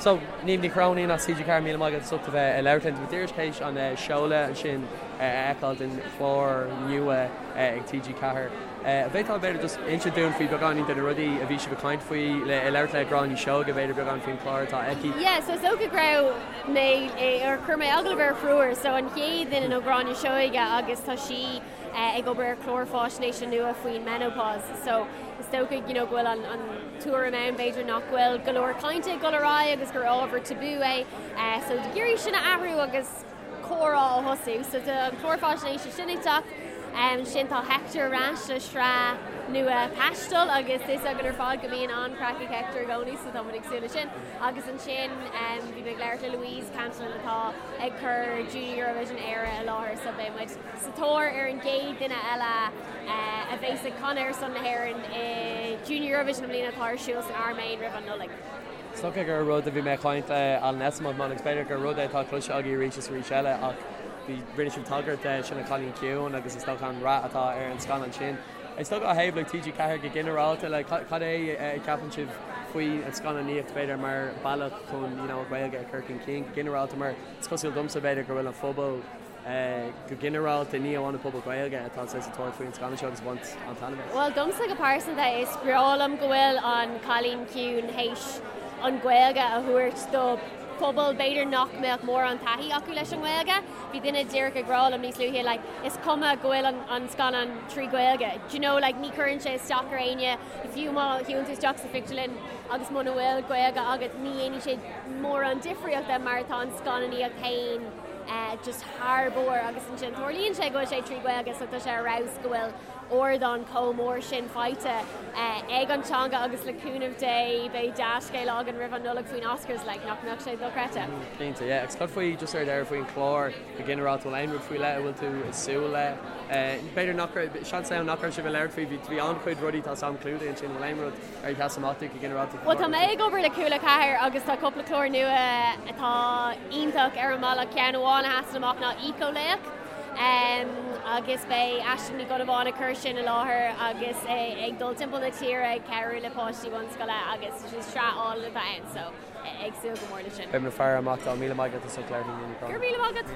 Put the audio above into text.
So, Niamh Ní Chróinín as TG4, míle maith agat as ucht a bheith ag labhairt linn. Tá muid díreach théis an seoladh ansin a fheiceáil den chlár nua ag TG4. An bhféadfá b'fhéidir just inse dúinn faoi beagáinín de na rudaí a bhí sibh ag caint faoi, le ag labhairt le Gráinne Seoige b'fhéidir beagán faoin chlár atá aici? Yeah, so is dócha go raibh mé, or chuir mé agallamh ar thriúr, so an chéad duine ná Gráinne Seoige agus tá sí ag obair ar chlár fáisnéise nua faoin menopause so is dócha you know go bhfuil an an tuairim ann b'fhéidir nach bhfuil go leor cainte ag dul ar aghaidh agus gur ábhar tabú é so ag iarraidh sin a athrú agus comhrá a thosú so tá an clár fáisnéise sin ag teacht. Ansin tá Hector ar ais le sraith nua taistil agus tá a fhios againn ar fad go mbíonn an-chraic ag Hector i gcónaí so tá muid ag súil le sin. Agus ansin bhí mé ag labhairt le Louise Cantillon atá ag cur Junior Eurovision Éire i láthair so beidh muid sa tóir ar an gcéad duine eile a bheas ag canadh ar son na hÉireann i Junior Eurovision i mbliana atá ar siúl san Airméin roimh an Nollaig. Is dócha gur rud a bhí mé ag caint le Alan Esslemont agus b'fhéidir gur rud é atá cloiste agaibh arís is arís eile ach bhí, rinne sibh tagairt de sin An Cailín Ciúin agus is dócha an rath atá ar an scannán sin. Is dócha ó thaobh like TG4 go ginearálta like cad é a cheapann sibh faoi an scannánaíocht b'fhéidir mar bealach chun you know an Ghaeilge a chur chun cinn go ginearálta mar is cosúil domsa b'fhéidir go bhfuil an phobal Go ginearálta, ní amháin an pobal Gaeilge atá saghas sa tóir faoin scannán seo agus ag baint an-taitneamh as. Bhuel, domsa go pearsanta, is breá liom go bhfuil An Cailín Ciúin théis an Ghaeilge a thabhairt do phobal b'fhéidir nach mbeadh mórán taithí acu leis an nGaeilge. Bhí duine díreach ag rá liom níos luaithe like is cuma go bhfuil an an scannán trí Ghaeilge. Do you know like ní chuireann sé isteach ar éinne, fiú má shiúlann tú isteach sa phictiúrlann agus muna bhfuil Gaeilge agat ní dhéanfaidh sé mórán difríochta mar tá an scannánaíocht féin just thar barr agus ansin tarlaíonn sé go bhfuil sé trí Ghaeilge so tá sé ar fheabhas go bhfuil ardán chomh mór sin faighte ag an teanga agus le cúnamh Dé beidh dea-scéala againn roimh an Nollaig faoin Oscars like nach mbeadh sé dochreidte. Cinnte, yeah. Agus cad faoi just ar deireadh faoin chlár go ginearálta, bhfuil aon rud faoi leith a bhfuil tú ag súil le? B'fhéidir nach raibh, seans ann nach raibh sibh ag labhairt faoi, bhí an-chuid rudaí tá sam clúdaithe ansin, bhfuil aon rud ar sheas amach duit go ginearálta? Bhuel tá mé ag obair le Cúla 4 agus tá cúpla clár nua atá iontach ar an mbealach. Ceann amháin a sheasann amach ná Éiceolaoch agus beidh Aisling Ní Dhonnabháin ag cur sin i láthair agus ag dul timpeall na tíre ag cabhrú le páistí bunscoile agus sraith álainn atá ann so ag súil go mór leis sin. Beidh muid ag faire amach dó. Míle maith agat as ucht labhairt linn, Niamh Ní Chróinín. Go raibh míle maith agat.